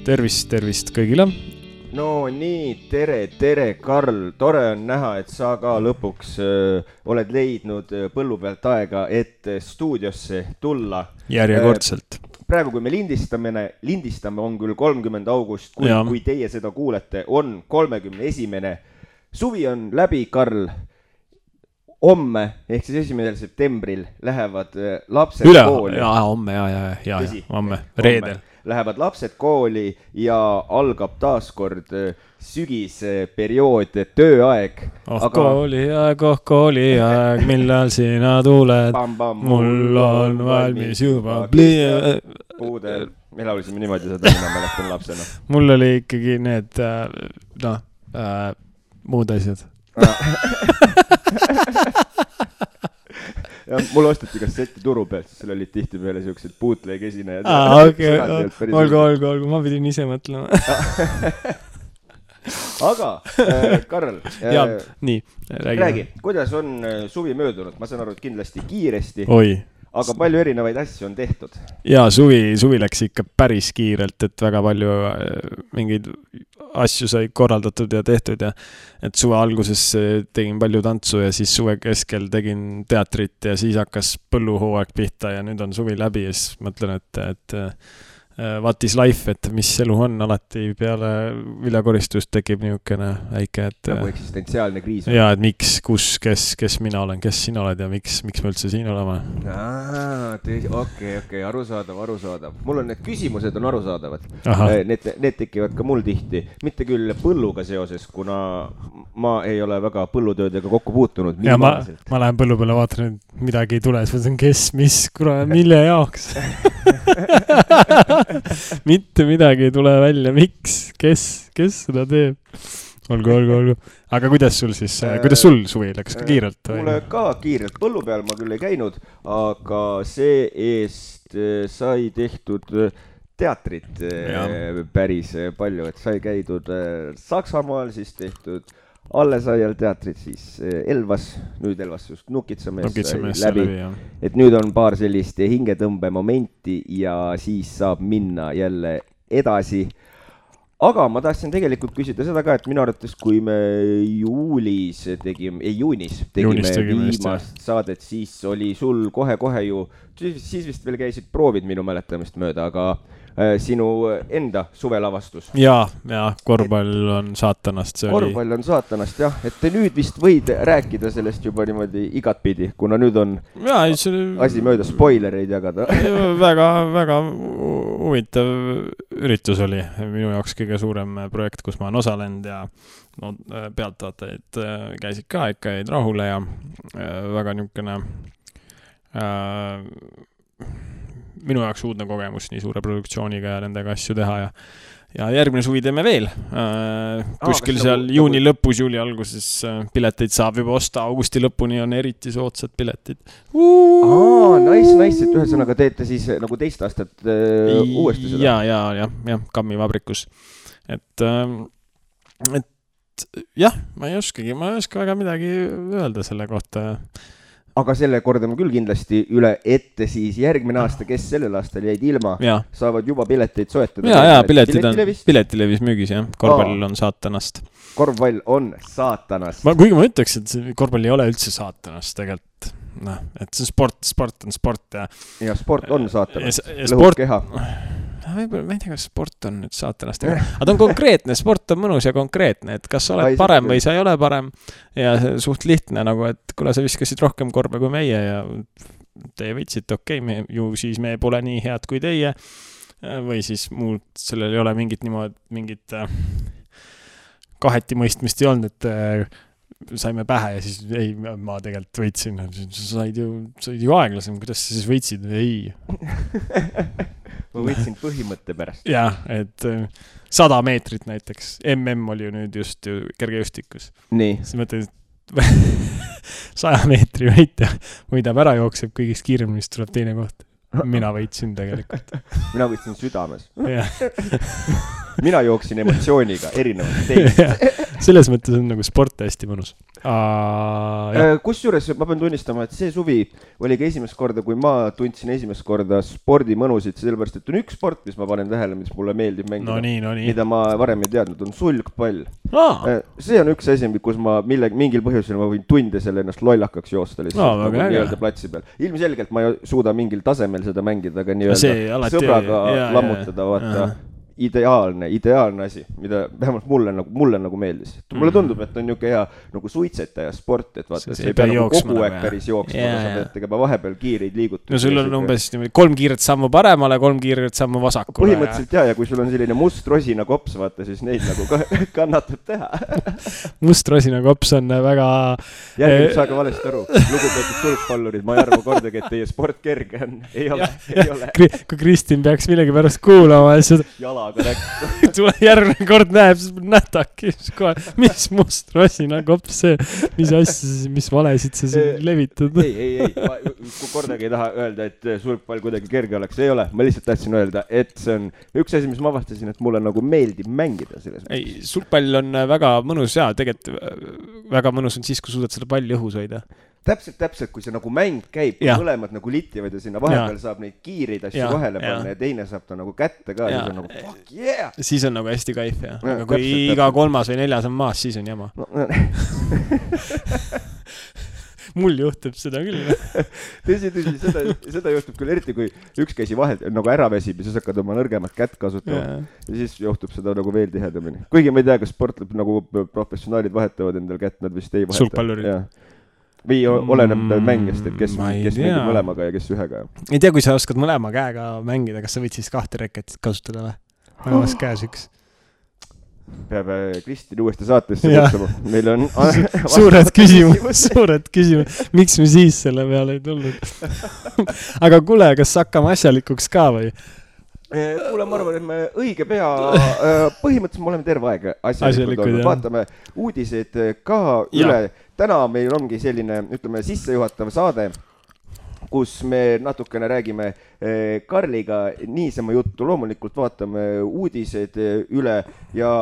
tervist kõigile. No nii, tere, Karl. Tore on näha, et sa ka lõpuks oled leidnud põllu pealt aega, et stuudiosse tulla. Järjekordselt. Praegu, kui me lindistame on küll 30. august, kui teie seda kuulete, on 31. Suvi on läbi, Karl. Homme, ehk siis 1. septembril lähevad lapsed kooli. Homme, reedel. Lähevad lapsed kooli ja algab taaskord sügisperiood, tööaeg. Kooliaeg, millal sina tuled, mul on valmis juba puudel. Me laulisime niimoodi seda, mina mäletan lapsena. Mul oli ikkagi need muud asjad. Ja mul ostati kasseti turu pealt, siis seal olid tihti peale siuksed bootleg esinejad. Olgu, ma pidin ise mõtlema. Aga, Karl, räägi, kuidas on suvi möödunud? Ma saan aru, et kindlasti kiiresti. Aga palju erinevaid asju on tehtud? Jaa, suvi läks ikka päris kiirelt, et väga palju mingeid asju sai korraldatud ja tehtud ja et suve alguses tegin palju tantsu ja siis suve keskel tegin teatrit ja siis hakkas põlluhooaeg pihta ja nüüd on suvi läbi ja siis mõtlen, et what is life, et mis elu on, alati peale viljakoristust tekib niisugune väike, et nagu eksistentsiaalne kriis. Ja, et miks, kes mina olen, kes sina oled ja miks me üldse siin olema. Okei, arusaadav. Mul on need küsimused on arusaadavad. Need tekivad ka mul tihti. Mitte küll põlluga seoses, kuna ma ei ole väga põllutöödega kokku puutunud. Ja ma lähen põllu peale, vaatan, et midagi ei tule, siis kes, mis, mille jaoks? Mitte midagi ei tule välja, miks, kes seda teeb? Olgu. Aga kuidas sul suvi läks ka kiirelt? Mulle ka kiirelt, põllu peal ma küll ei käinud, aga see eest sai tehtud teatrit päris palju, et sai käidud Saksamaal, siis tehtud Allesaial teatrit, siis Elvas, nüüd Elvas just Nukitsamees läbi, et nüüd on paar sellist hingetõmbe momenti ja siis saab minna jälle edasi. Aga ma tahtsin tegelikult küsida seda ka, et minu arvates, kui me juunis tegime viimast saadet, siis oli sul kohe ju, siis vist veel käisid proovid minu mäletamist mööda, aga sinu enda suvelavastus. Ja, korvpall on saatanast. Korvpall on saatanast, jah. Et te nüüd vist võid rääkida sellest juba niimoodi igatpidi, kuna nüüd on asi mööda spoilereid jagada. Väga huvitav üritus oli. Minu jaoks kõige suurem projekt, kus ma olen osalenud ja pealtvaatajaid käisid ka ikka jäid rahule ja väga niisugune minu jaoks uudne kogemus nii suure produktsiooniga ja nendega asju teha ja järgmine suvi teeme veel. Kuskil seal juuni lõpus, juuli alguses pileteid saab juba osta, augusti lõpuni on eriti soodsad piletid. Nice, et ühesõnaga teete siis nagu teist aastat uuesti seda. Ja, Kammi vabrikus. Et jah, ma ei oska väga midagi öelda selle kohta. Aga selle kordame küll kindlasti üle ette siis järgmine aasta, kes sellel aastal jäid ilma, saavad juba pileteid soetada. Ja, piletilevis müügis, jah. Korvpall on saatanast. Korvpall on saatanast. Kuigi ma ütleks, et korvpall ei ole üldse saatanast tegelikult. Et see sport on sport. Ja sport on saatanast. Lõhub keha. Ma ei tea, kas sport on nüüd saatanast. Aga ta on konkreetne, sport on mõnus ja konkreetne, et kas sa oled parem või sa ei ole parem ja suht lihtne, nagu et kuna sa viskasid rohkem korve kui meie ja teie võitsite, ju siis me pole nii head kui teie või siis muud, sellel ei ole mingit kaheti mõistmist ei olnud, et saime pähe ja siis ei, ma tegelikult võitsin, sa said ju aeglasem, kuidas sa siis võitsid? Ei. Ma võitsin põhimõtte pärast. Jah, et 100 meetrit näiteks. oli ju nüüd just kergejõustikus. Nii. Siis mõtled, 100 meetri võidab ära, jookseb kõigist kiiremist, tuleb teine koht. Mina võitsin tegelikult. Mina võitsin südames. Mina jooksin emotsiooniga erinevalt teist. selles mõttes on nagu sport hästi mõnus. Kusjuures ma pean tunnistama, et see suvi oli ka esimest korda, kui ma tundsin esimest korda spordi mõnusid, sellepärast, et on üks sport, mis ma panen tähele, mis mulle meeldib mängida, mida ma varem ei teadnud, on sulgpall. See on üks asi, kus ma mingil põhjusel ma võin tunde selle ennast lollakaks joosta lihtsalt nagu nii-öelda platsi peal. Ilmselgelt ma ei suuda mingil tasemel seda mängida, aga nii-öelda sõbraga lammutada, vaata. Ideaalne asi, mida vähemalt mulle nagu meeldis. Mulle tundub, et on niuke hea nagu suitsetaja sport, et vaata, see ei pea nagu kogu aeg päris jooksma, sa pead tegema vahepeal kiireid liigutusi. No sul on umbes 3 kiiret sammu paremale, 3 kiiret sammu vasakule. Põhimõtteliselt ja kui sul on selline must rosina kops, vaata, siis neid nagu kannatab teha. Must rosina kops on väga... Järgimid saage valesti aru. Lugupeetud sulgpallurid, ma ei arva kordagi, et teie sport kerge on. Ei ole. Kui Kristin peaks millegi pärast kuulama, siis tule järgmine kord näeb, siis nähtaki kohe, mis must rosina kops see, mis asja, mis valesid sa siin levitad. Ei, kui kordagi ei taha öelda, et sulgpall kuidagi kerge oleks, ei ole. Ma lihtsalt tahtsin öelda, et see on üks asi, mis ma avastasin, et mulle nagu meeldib mängida selles. Ei, sulgpall on väga mõnus ja tegelikult väga mõnus on siis, kui suudad selle palli õhus hoida. Täpselt, kui see nagu mäng käib, kui mõlemad nagu litivad ja sinna vahepeal saab neid kiireid asju vahele panna ja teine saab ta nagu kätte ka, siis on nagu fuck yeah! Siis on nagu hästi kaif, ja. Aga kui iga 3. või 4. on maas, siis on jama. Mul juhtub seda küll. Tõsi, seda juhtub küll eriti, kui üks käsi vahelt nagu ära väsib ja siis hakkad oma nõrgemat kätt kasutama ja siis juhtub seda nagu veel tihedamini. Kuigi ma ei tea, kas sportleb nagu professionaalid vahetavad endal kätt, nad vist ei vaheta. Sulgpallurid. Või oleneb mängist, et kes mängib mõlemaga ja kes ühega. Ei tea, kui sa oskad mõlema käega mängida, kas sa võid siis 2 reketit kasutada või? Mõlemas käes üks. Peab Kristin uuesti saatesse kutsama. Meil on suured küsimus. Miks me siis selle peale ei tulnud? Aga kuule, kas hakkame asjalikuks ka või? Kuule, ma arvan, et me õige pea, põhimõtteliselt me oleme terve aeg asjalikud olnud. Vaatame uudised ka üle. Täna meil ongi selline, ütleme, sissejuhatav saade, kus me natukene räägime Karliga niisama juttu. Loomulikult vaatame uudised üle ja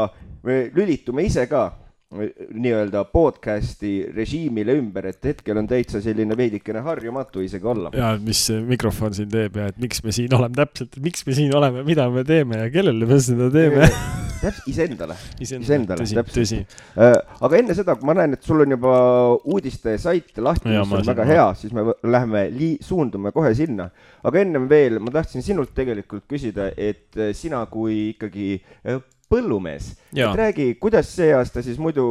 me lülitume ise ka nii-öelda podcasti režiimile ümber, et hetkel on täitsa selline veidikene harjumatu isegi olla. Ja mis mikrofon siin teeb ja et miks me siin oleme täpselt, miks me siin oleme, mida me teeme ja kellele me seda teeme. Iseendale, tõsi. Aga enne seda, kui ma näen, et sul on juba uudiste sait lahti, mis on väga hea, siis me läheme suundume kohe sinna. Aga ennem veel, ma tahtsin sinult tegelikult küsida, et sina kui ikkagi põllumees, et räägi, kuidas see aasta siis muidu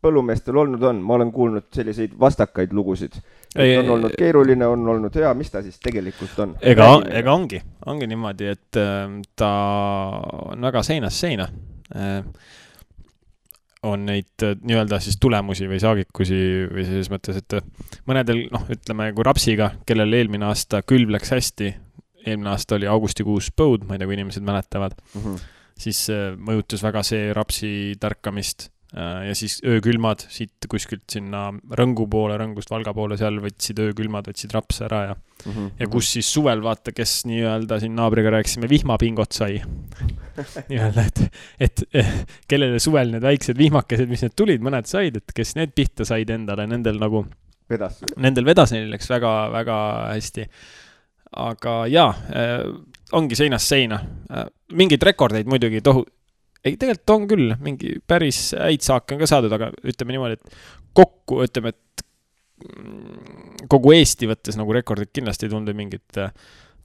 põllumeestel olnud on? Ma olen kuulnud selliseid vastakaid lugusid. On olnud keeruline, on olnud hea, mis ta siis tegelikult on? Ega ongi niimoodi, et ta on väga seinast seina. On neid nii-öelda siis tulemusi või saagikusi või selles mõttes, et mõnedel, ütleme, kui rapsiga, kellel eelmine aasta külv läks hästi, eelmine aasta oli augustikuus põud, ma ei tea, kui inimesed mäletavad, siis mõjutas väga see rapsi tärkamist ja siis öökülmad siit kuskilt sinna Rõngu poole, Rõngust Valga poole, seal võtsid öökülmad, võtsid rapse ära ja kus siis suvel vaata, kes nii-öelda siin naabriga rääkisime, vihmapingot sai. Nii-öelda, et kellele suvel need väiksed vihmakesed, mis need tulid, mõned said, et kes need pihta said endale, nendel nagu nendel vedas, neil läks väga, väga hästi. Aga ongi seinast seina. Mingeid rekordeid muidugi ei, tegelikult on küll, mingi päris häid saake on ka saadud, aga ütleme niimoodi, et kokku, ütleme, et kogu Eesti võttes nagu rekordid kindlasti ei tundu mingit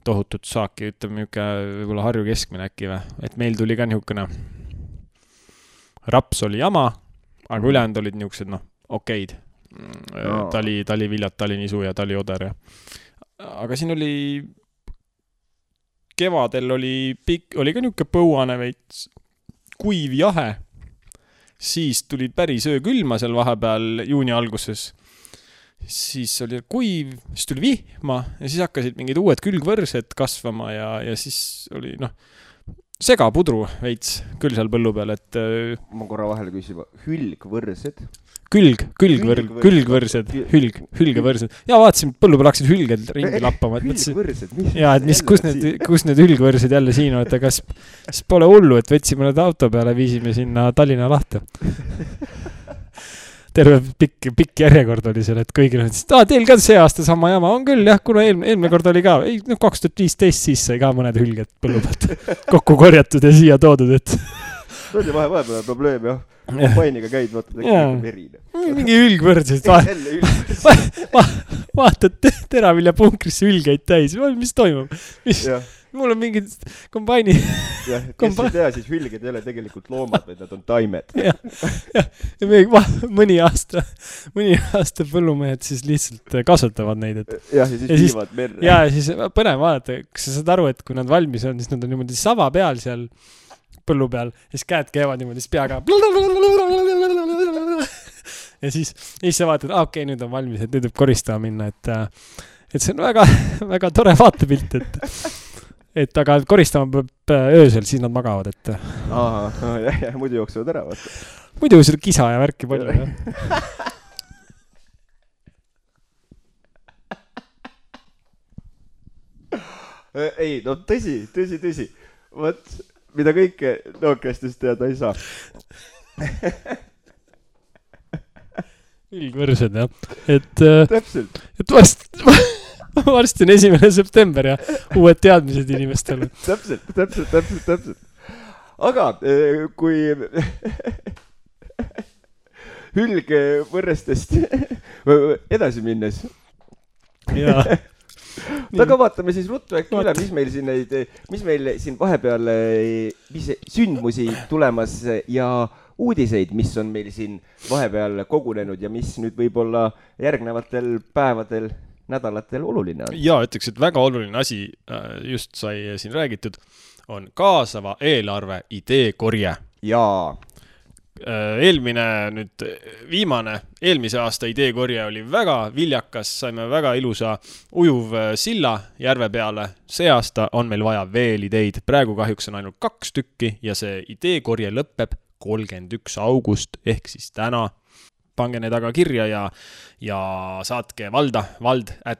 tohutut saaki, ütleme võib-olla Harju keskmine äkki või, et meil tuli ka niisugune raps oli jama, aga ülejäänud olid niisugused, okeid. Taliviljad, talinisu ja talioder. Aga siin oli kevadel oli ka niisugune põuane veits kuiv jahe, siis tuli päris öökülma seal vahepeal juuni alguses, siis oli kuiv, siis tuli vihma ja siis hakkasid mingid uued külgvõrsed kasvama ja siis oli segapudru veits küll seal põllu peal, et ma korra vahele küsima, hülgvõrsed? Külgvõrsed. Ja vaatasin, põllu peal hakkasid hülged ringi lappama. Hülgvõrsed? Ja, et kus need hülgvõrsed jälle siin on, et kas pole hullu, et võtsime need auto peale, viisime sinna Tallinna lahte. terve pikk järjekord oli seal, et kõigil on, teil ka see aasta sama jama, on küll jah, kuna eelmine kord oli ka, 2015 siis sai ka mõned hülged põllu pealt kokku korjatud ja siia toodud, et see oli vahepeal probleem jah. Kombainiga käid, vaatad, verine. Mingi hülgvõrdsid. Vaatad teravilja punkrisse hülgeid täis. Mis toimub? Mul on mingid kombaini... Jah, kes ei tea, siis hülged ei ole tegelikult loomad, vaid nad on taimed. Ja mõni aasta põllumehed siis lihtsalt kasvatavad neid. Ja siis viivad merre. Ja siis põnev vaadata, kas sa saad aru, et kui nad valmis on, siis nad on niimoodi sava peal seal põllu peal, siis käed käivad niimoodi, siis peaga ja siis sa vaatad, okei, nüüd on valmis, et nüüd võib koristama minna, et see on väga, väga tore vaatepilt, et aga koristama peab öösel, siis nad magavad, et jah, muidu jooksevad ära, vaata. Muidu seda kisa ja värki palju, jah. Ei, no tõsi. Võt, mida kõike nookestest teada ei saa. Ülgvõrsed, jah. Täpselt. Et varsti on 1. september ja uued teadmised inimestele. Täpselt. Aga kui hülgvõrrestest edasi minnes. Jaa. Aga vaatame siis ruttu äkki üle, mis meil siin vahepeal sündmusi tulemas ja uudiseid, mis on meil siin vahepeal kogunenud ja mis nüüd võib-olla järgnevatel päevadel, nädalatel oluline on. Jaa, ütleks, et väga oluline asi just sai siin räägitud, on kaasava eelarve ideekorje. Jaa. Eelmise aasta ideekorje oli väga viljakas, saime väga ilusa ujuv silla järve peale. See aasta on meil vaja veel ideid. Praegu kahjuks on ainult 2 tükki ja see ideekorje lõpeb 31. august ehk siis täna. Pange need aga kirja ja saatke vald@nvv.ee.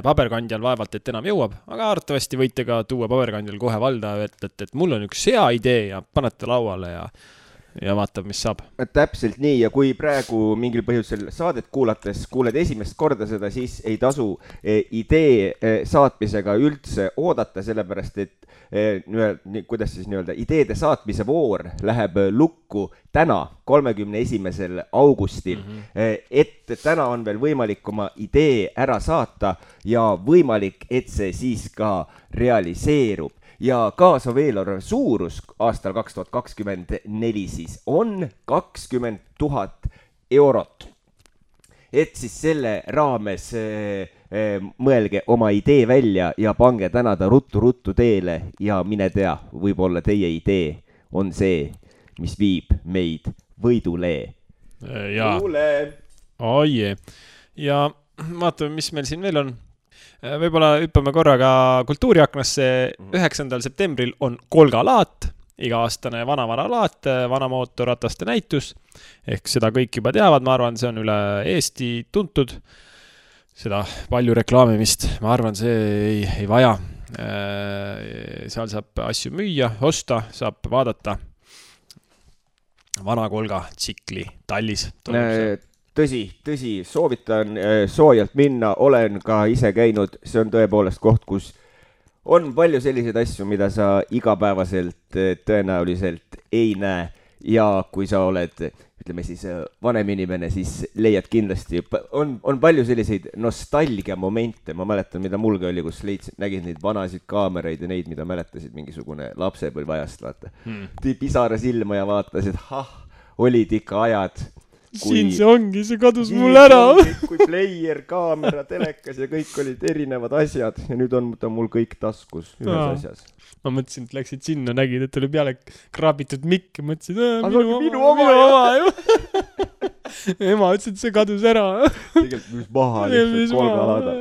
Paberkandjal vaevalt, et enam jõuab, aga arvatavasti võite ka tuua paberkandjal kohe valda, et mul on üks hea idee ja panete lauale ja vaatab, mis saab. Täpselt nii, ja kui praegu mingil põhjusel saadet kuulates kuuled esimest korda seda, siis ei tasu idee saatmisega üldse oodata, sellepärast et kuidas siis nii-öelda ideede saatmise voor läheb lukku täna, 31. augustil. Et täna on veel võimalik oma idee ära saata ja võimalik, et see siis ka realiseerub. Ja kaasav eelarve suurus aastal 2024 siis on 20 000 eurot. Et siis selle raames mõelge oma idee välja ja pange täna ta ruttu teele ja mine tea, võib-olla teie idee on see, mis viib meid võidulee. Oie. Ja vaatame, mis meil siin veel on. Võib-olla hüppame korraga kultuuriaknasse. 9. septembril on Kolgalaat, iga-aastane vanavaralaat, vanamootorrataste näitus. Ehk seda kõik juba teavad, ma arvan, see on üle Eesti tuntud. Seda palju reklaamimist, ma arvan, see ei vaja. Seal saab asju müüa, osta, saab vaadata. Vana Kolga tsikli tallis. Tõsi, soovitan soojalt minna, olen ka ise käinud, see on tõepoolest koht, kus on palju selliseid asju, mida sa igapäevaselt tõenäoliselt ei näe ja kui sa oled, ütleme siis vanem inimene, siis leiad kindlasti, on palju selliseid nostalgia momente, ma mäletan, mida mulgi oli, kus nägid neid vanasid kaameraid ja neid, mida mäletasid mingisugune lapsepõlvajast, vaata. Tõi pisara silma ja vaatas, et olid ikka ajad, siin see ongi, see kadus mul ära. Kui player, kaamera, telekas ja kõik olid erinevad asjad ja nüüd on ta mul kõik taskus ühes asjas. Ma mõtlesin, et läksid sinna, nägid, et oli peale kraabitud mikk ja mõtlesin, minu oma. Ema ütles, et see kadus ära. Tegelikult mis maha lihtsalt Kolgalada.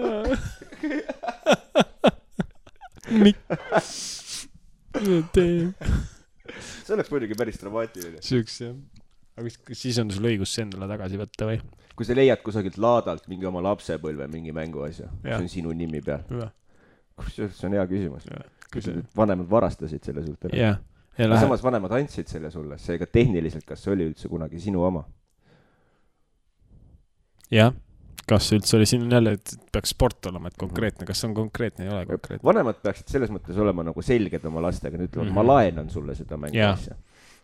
Mikk. See oleks muidugi päris dramaatiline. Süüks, jah. Aga siis on sul õigus see endale tagasi võtta või? Kui sa leiad kusagilt laadalt mingi oma lapsepõlve, mingi mänguasja, see on sinu nimi peal. See on hea küsimus. Kui sa vanemad varastasid selle suht ära. Jah, Aga samas vanemad andsid selle sulle, seega tehniliselt, kas see oli üldse kunagi sinu oma? Jah, kas see üldse oli siin jälle, et peaks sport olema, et konkreetne, kas see on konkreetne, ei ole konkreetne? Vanemad peaksid selles mõttes olema nagu selged oma lastega, nüüd ütlevad, ma laenan sulle seda mängu asja.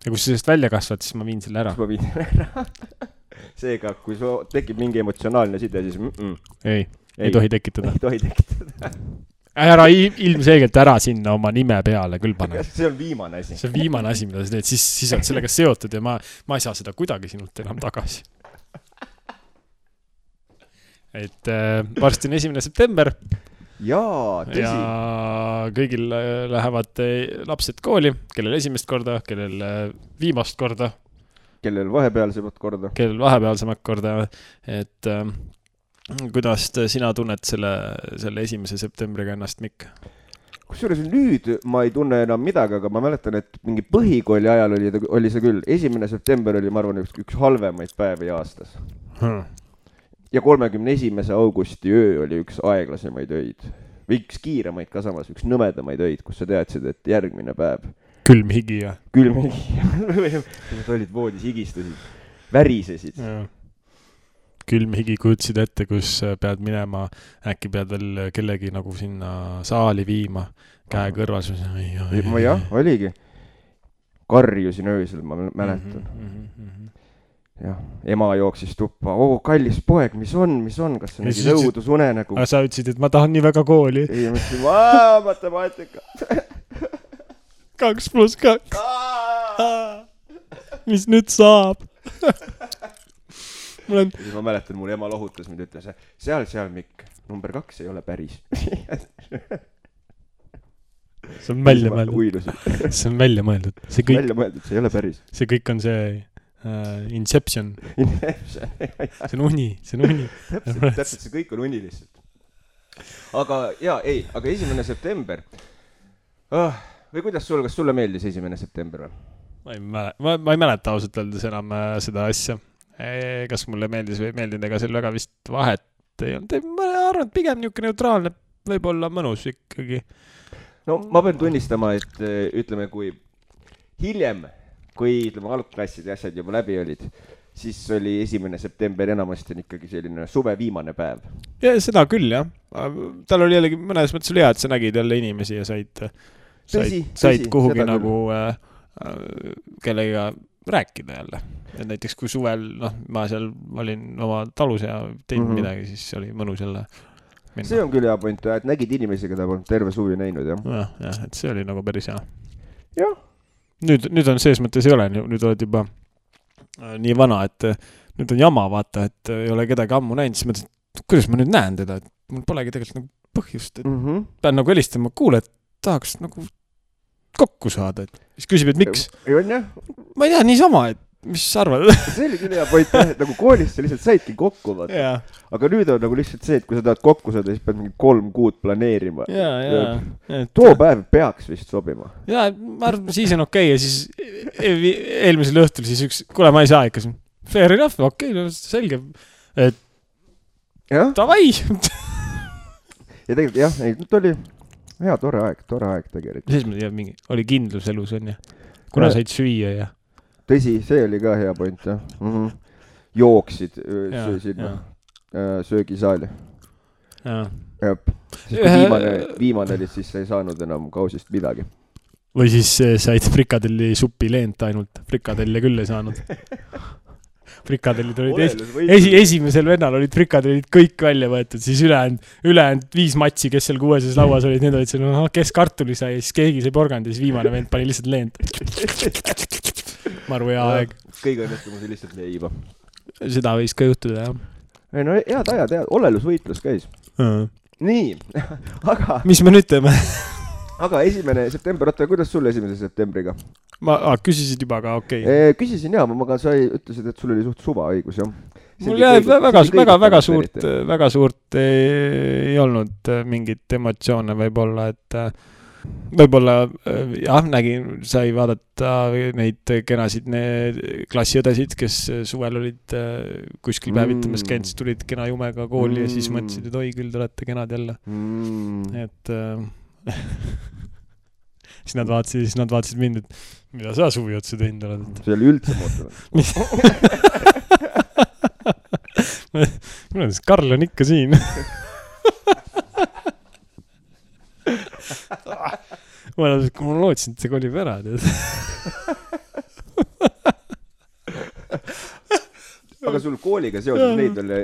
Ja kui sa sellest välja kasvad, siis ma viin selle ära. Seega, kui tekib mingi emotsionaalne side, siis ei tohi tekitada. Ei tohi tekitada. Ära ilmselgelt ära sinna oma nime peale küll pane. See on viimane asi. See on viimane asi, mida sa teed, siis oled sellega seotud ja ma ei saa seda kuidagi sinult enam tagasi. Et varsti on 1. september. Jaa, tõsi. Ja kõigil lähevad lapsed kooli, kellel esimest korda, kellel viimast korda. Kellel vahepealsemat korda. Kellel vahepealsemat korda. Et kuidas sina tunned selle 1. septembriga ennast, Mikk? Kusjuures nüüd ma ei tunne enam midagi, aga ma mäletan, et mingi põhikooli ajal oli see küll. 1. september oli, ma arvan, üks halvemaid päevi aastas. Ja 31. augusti öö oli üks aeglasemaid öid. Või üks kiiremaid ka samas, üks nõmedamaid öid, kus sa teadsid, et järgmine päev. Külm higi ja. Külm higi. Nad olid voodis, higistusid, värisesid. Külm higi kujutsid ette, kus pead minema, äkki pead veel kellegi nagu sinna saali viima, käe kõrvas. Jah, oligi. Karjusin öösel, ma mäletan. Jah, ema jooksis tuppa. Kallis poeg, mis on? Kas see nägi nõudus unenägu? Aga sa ütlesid, et ma tahan nii väga kooli. Ei, ma ütlesin, matemaatika. 2 + 2. Mis nüüd saab? Ma mäletan, mul ema lohutas, mind ütles, seal, Mikk, number 2 ei ole päris. See on välja mõeldud. See on välja mõeldud. See ei ole päris. See kõik on see Inception. See on uni. Täpselt, see kõik on uni lihtsalt. Aga 1. september. Või kuidas kas sulle meeldis 1. september või? Ma ei mäleta ausalt öeldes enam seda asja. Kas mulle meeldis või ei meeldinud, ega seal väga vist vahet ei olnud. Ma arvan, et pigem niisugune neutraalne, võib-olla mõnus ikkagi. No ma pean tunnistama, et ütleme, kui hiljem, kui algklassid ja asjad juba läbi olid, siis oli 1. september enamasti ikkagi selline suve viimane päev. Ja seda küll, jah. Tal oli jällegi mõnes mõttes hea, et sa nägid jälle inimesi ja said kuhugi nagu kellega rääkida jälle. Et näiteks kui suvel, ma seal olin oma talus ja teinud midagi, siis oli mõnus jälle minna. See on küll hea point, et nägid inimesi, keda polnud terve suvi näinud, jah? Jah, et see oli nagu päris hea. Jah. Nüüd on sees mõttes ei ole, nüüd oled juba nii vana, et nüüd on jama, vaata, et ei ole kedagi ammu näinud, siis mõtlesin, et kuidas ma nüüd näen teda, et mul polegi tegelikult nagu põhjust, et pean nagu helistama, kuule, et tahaks nagu kokku saada, et siis küsib, et miks? Ma ei tea, niisama, et mis sa arvad? See oli küll hea point, et nagu koolist sa lihtsalt saidki kokku, vaata. Aga nüüd on nagu lihtsalt see, et kui sa tahad kokku saada, siis pead mingi 3 kuud planeerima. Too päev peaks vist sobima. Jaa, ma arvan, siis on okei. Ja siis eelmisel õhtul siis kuule, ma ei saa ikka. Fair enough, okei, selge. Et tavai. Ja tegelikult jah, nüüd oli hea, tore aeg tegelikult. Siis ma tean, oli kindlus elus on ja kuna said süüa ja tõsi, see oli ka hea point, jah. Jooksid sinna söögisaali. Viimane oli siis, sa ei saanud enam kausist midagi. Või siis said frikadelli supi leent ainult. Frikadelle küll ei saanud. Frikadellid olid esimesel vennal olid frikadellid kõik välja võetud, siis ülejäänud 5 matsi, kes seal 6. lauas olid, need olid seal, kes kartuli sai, siis keegi sai porgand ja siis viimane vend pani lihtsalt leent. Maru hea aeg. Kõige õnnestumus oli lihtsalt leiba. Seda võis ka juhtuda, jah. Ei, no head ajad, olelusvõitlus käis. Nii, aga... Mis me nüüd teeme? Aga 1. september, oota, kuidas sul 1. septembriga? Küsisid juba ka, okei. Küsisin jah, aga sa ütlesid, et sul oli suht suva õigus, jah. Mul väga suurt ei olnud mingit emotsioone võib-olla, et võib-olla jah, sai vaadata neid kenasid klassiõdesid, kes suvel olid kuskil päevitamas käinud, siis tulid kena jumega kooli ja siis mõtlesid, et oi küll, te olete kenad jälle. Et siis nad vaatasid mind, et mida sa suvi otsa teinud oled. See oli üldse muutunud. Minu Karl on ikka siin. Ma lootsin, et see kolib ära. Aga sul kooliga seoses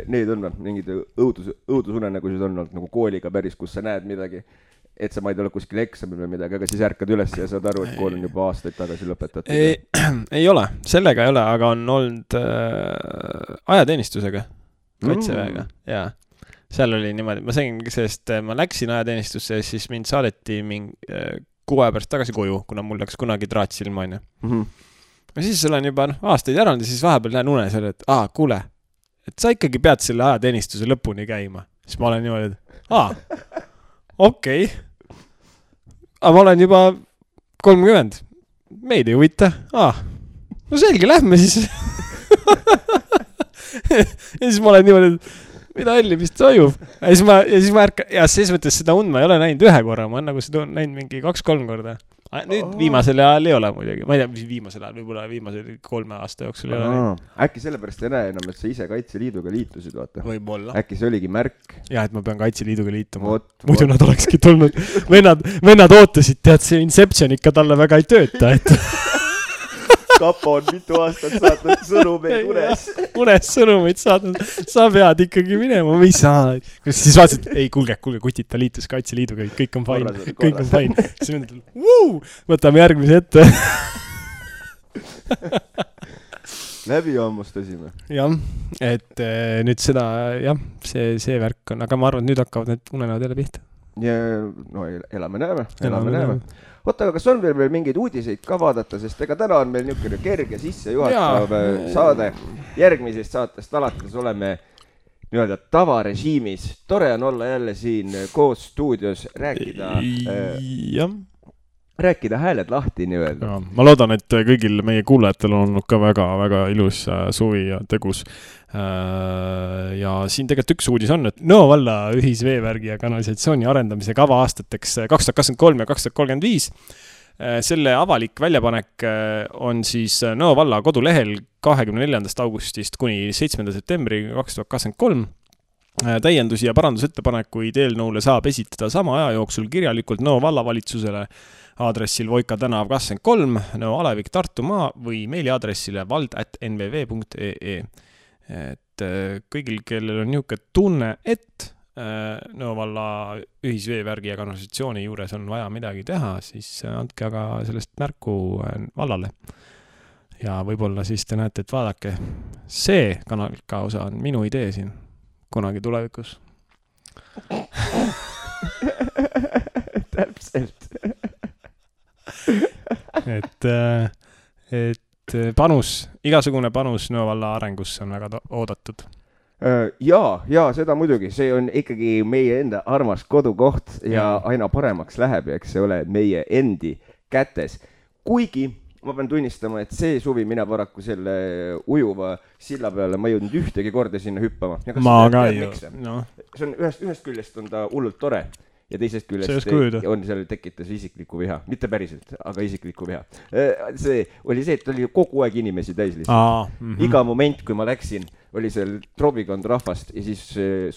neid on mingid õudusunenägusid on olnud nagu kooliga päris, kus sa näed midagi, et sa ma ei ole kuskil eksamil või midagi, aga siis ärkad üles ja saad aru, et kool on juba aastaid tagasi lõpetatud. Ei ole, sellega ei ole, aga on olnud ajateenistusega, kaitseväega, jaa. Seal oli niimoodi, ma sain, sest ma läksin ajateenistusse ja siis mind saadeti 6 aja pärast tagasi koju, kuna mul läks kunagi traat silma, on ju. Ja siis olen juba aastaid järanud ja siis vahepeal näen unes, et kuule, et sa ikkagi pead selle ajateenistuse lõpuni käima. Siis ma olen niimoodi, et okei. Aga ma olen juba 30. Meid ei huvita. No selge, lähme siis. Ja siis ma olen niimoodi, et mida helli vist toimub. Ja siis ma ärka, ja siis mõttes seda und ma ei ole näinud 1 korra, ma olen nagu seda näinud mingi 2-3 korda. Nüüd viimasel ajal ei ole muidugi. Ma ei tea, mis viimasel ajal, võib-olla viimasel 3 aasta jooksul ei ole. Äkki sellepärast ei näe enam, et sa ise Kaitseliiduga liitusid, vaata. Võib-olla. Äkki see oligi märk. Jah, et ma pean Kaitseliiduga liituma. Muidu nad olekski tulnud. Vennad ootasid, tead, see Inception ikka talle väga ei tööta, et... Kapo on mitu aastat saatnud sõnumeid unes sõnumeid saatnud. Sa pead ikkagi minema, või saa. Siis vaatasid, ei, kuulge, kutid, ta liitus Kaitseliiduga, kõik on fine. Kõik on fine. Siis mõtled, võtame järgmise ette. Läbi ammustasime. Jah, et nüüd seda, jah, see värk on, aga ma arvan, et nüüd hakkavad need unenäod jälle pihta. Ja, no elame näeme. Oota, aga kas on veel mingeid uudiseid ka vaadata, sest ega täna on meil niisugune kerge sisse juhatav saade. Järgmisest saatest alates oleme nii-öelda tavarežiimis. Tore on olla jälle siin koos stuudios, rääkida hääled lahti nii-öelda. Ma loodan, et kõigil meie kuulajatel on olnud ka väga-väga ilus suvi ja tegus. Ja siin tegelikult üks uudis on, et Nõo valla ühisveevärgi ja kanalisatsiooni arendamise kava aastateks 2023 ja 2035. Selle avalik väljapanek on siis Nõo valla kodulehel 24. augustist kuni 7. septembri 2023. Täiendusi ja parandusettepanekuid eelnõule saab esitada sama aja jooksul kirjalikult Nõo vallavalitsusele aadressil Voika tänav 23, Nõo Alevik Tartumaa või meiliaadressile vald@nvv.ee. Et kõigil, kellel on niisugune tunne, et Nõo valla ühisveevärgi ja kanalisatsiooni juures on vaja midagi teha, siis andke aga sellest märku vallale. Ja võib-olla siis te näete, et vaadake, see kanalika osa on minu idee siin kunagi tulevikus. Täpselt. Et igasugune panus Nõo valla arengusse on väga oodatud. Ja seda muidugi, see on ikkagi meie enda armas kodukoht ja aina paremaks läheb, eks see ole meie endi kätes. Kuigi ma pean tunnistama, et see suvi mina paraku selle ujuva silla peale ma ei jõudnud ühtegi korda sinna hüppama. Ma ka ju. No. See on ühest küljest on ta hullult tore. Ja teisest küljest on seal tekitas isiklikku viha. Mitte päriselt, aga isiklikku viha. See oli see, et oli kogu aeg inimesi täis lihtsalt. Iga moment, kui ma läksin, oli seal trobikond rahvast ja siis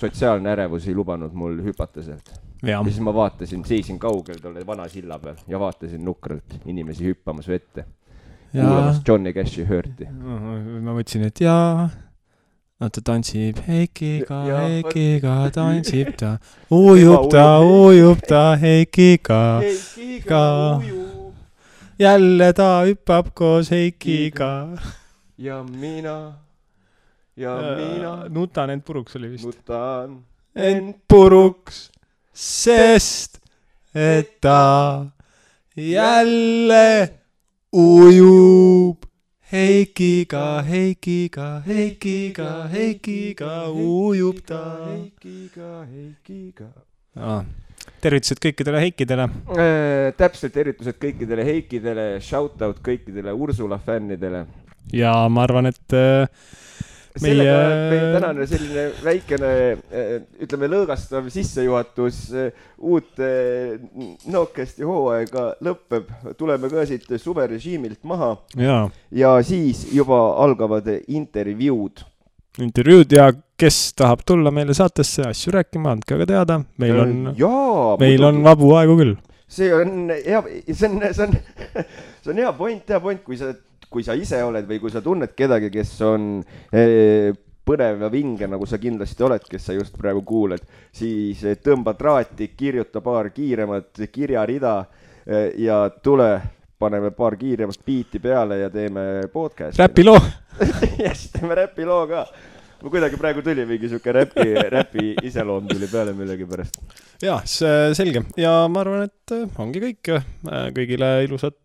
sotsiaalne ärevus ei lubanud mul hüpata sealt. Ja siis ma vaatasin, seisin kaugel tolle vana silla peal ja vaatasin nukralt inimesi hüppamas vette. Kuulamas Johnny Cashi hörti. Ma mõtlesin, et ta tantsib Heikiga, tantsib ta, ujub ta Heikiga. Jälle ta hüppab koos Heikiga. Ja mina. Nutan end puruks oli vist. Nutan end puruks, sest et ta jälle ujub. Heikiga ujub ta. Heikiga. Tervitused kõikidele Heikidele. Täpselt tervitused kõikidele Heikidele, shoutout kõikidele Ursula fännidele. Ja ma arvan, et sellega meie tänane selline väikene, ütleme, lõõgastav sissejuhatus uut Nokesti hooaega lõpeb. Tuleme ka siit suverežiimilt maha ja siis juba algavad intervjuud ja kes tahab tulla meile saatesse asju rääkima, andke aga teada. Meil on vabu aegu küll. See on hea point, kui sa ise oled või kui sa tunned kedagi, kes on põnev ja vinge, nagu sa kindlasti oled, kes sa just praegu kuuled, siis tõmba traati, kirjuta paar kiiremat kirjarida ja tule, paneme paar kiiremat biiti peale ja teeme podcast. Räpiloo! Yes, teeme räpiloo ka. Ma kuidagi praegu tuli mingi siuke räpi iseloom tuli peale millegi pärast. Jah, selge. Ja ma arvan, et ongi kõik. Kõigile ilusat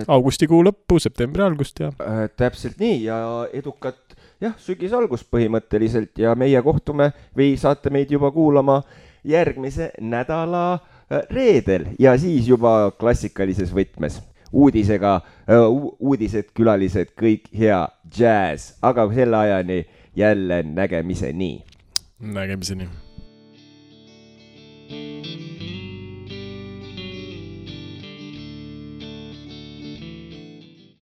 augustikuu lõppu, septembri algust ja täpselt nii ja edukat sügis algust põhimõtteliselt ja meie kohtume või saate meid juba kuulama järgmise nädala reedel ja siis juba klassikalises võtmes uudisega, uudised, külalised, kõik hea jazz, aga selle ajani jälle nägemiseni.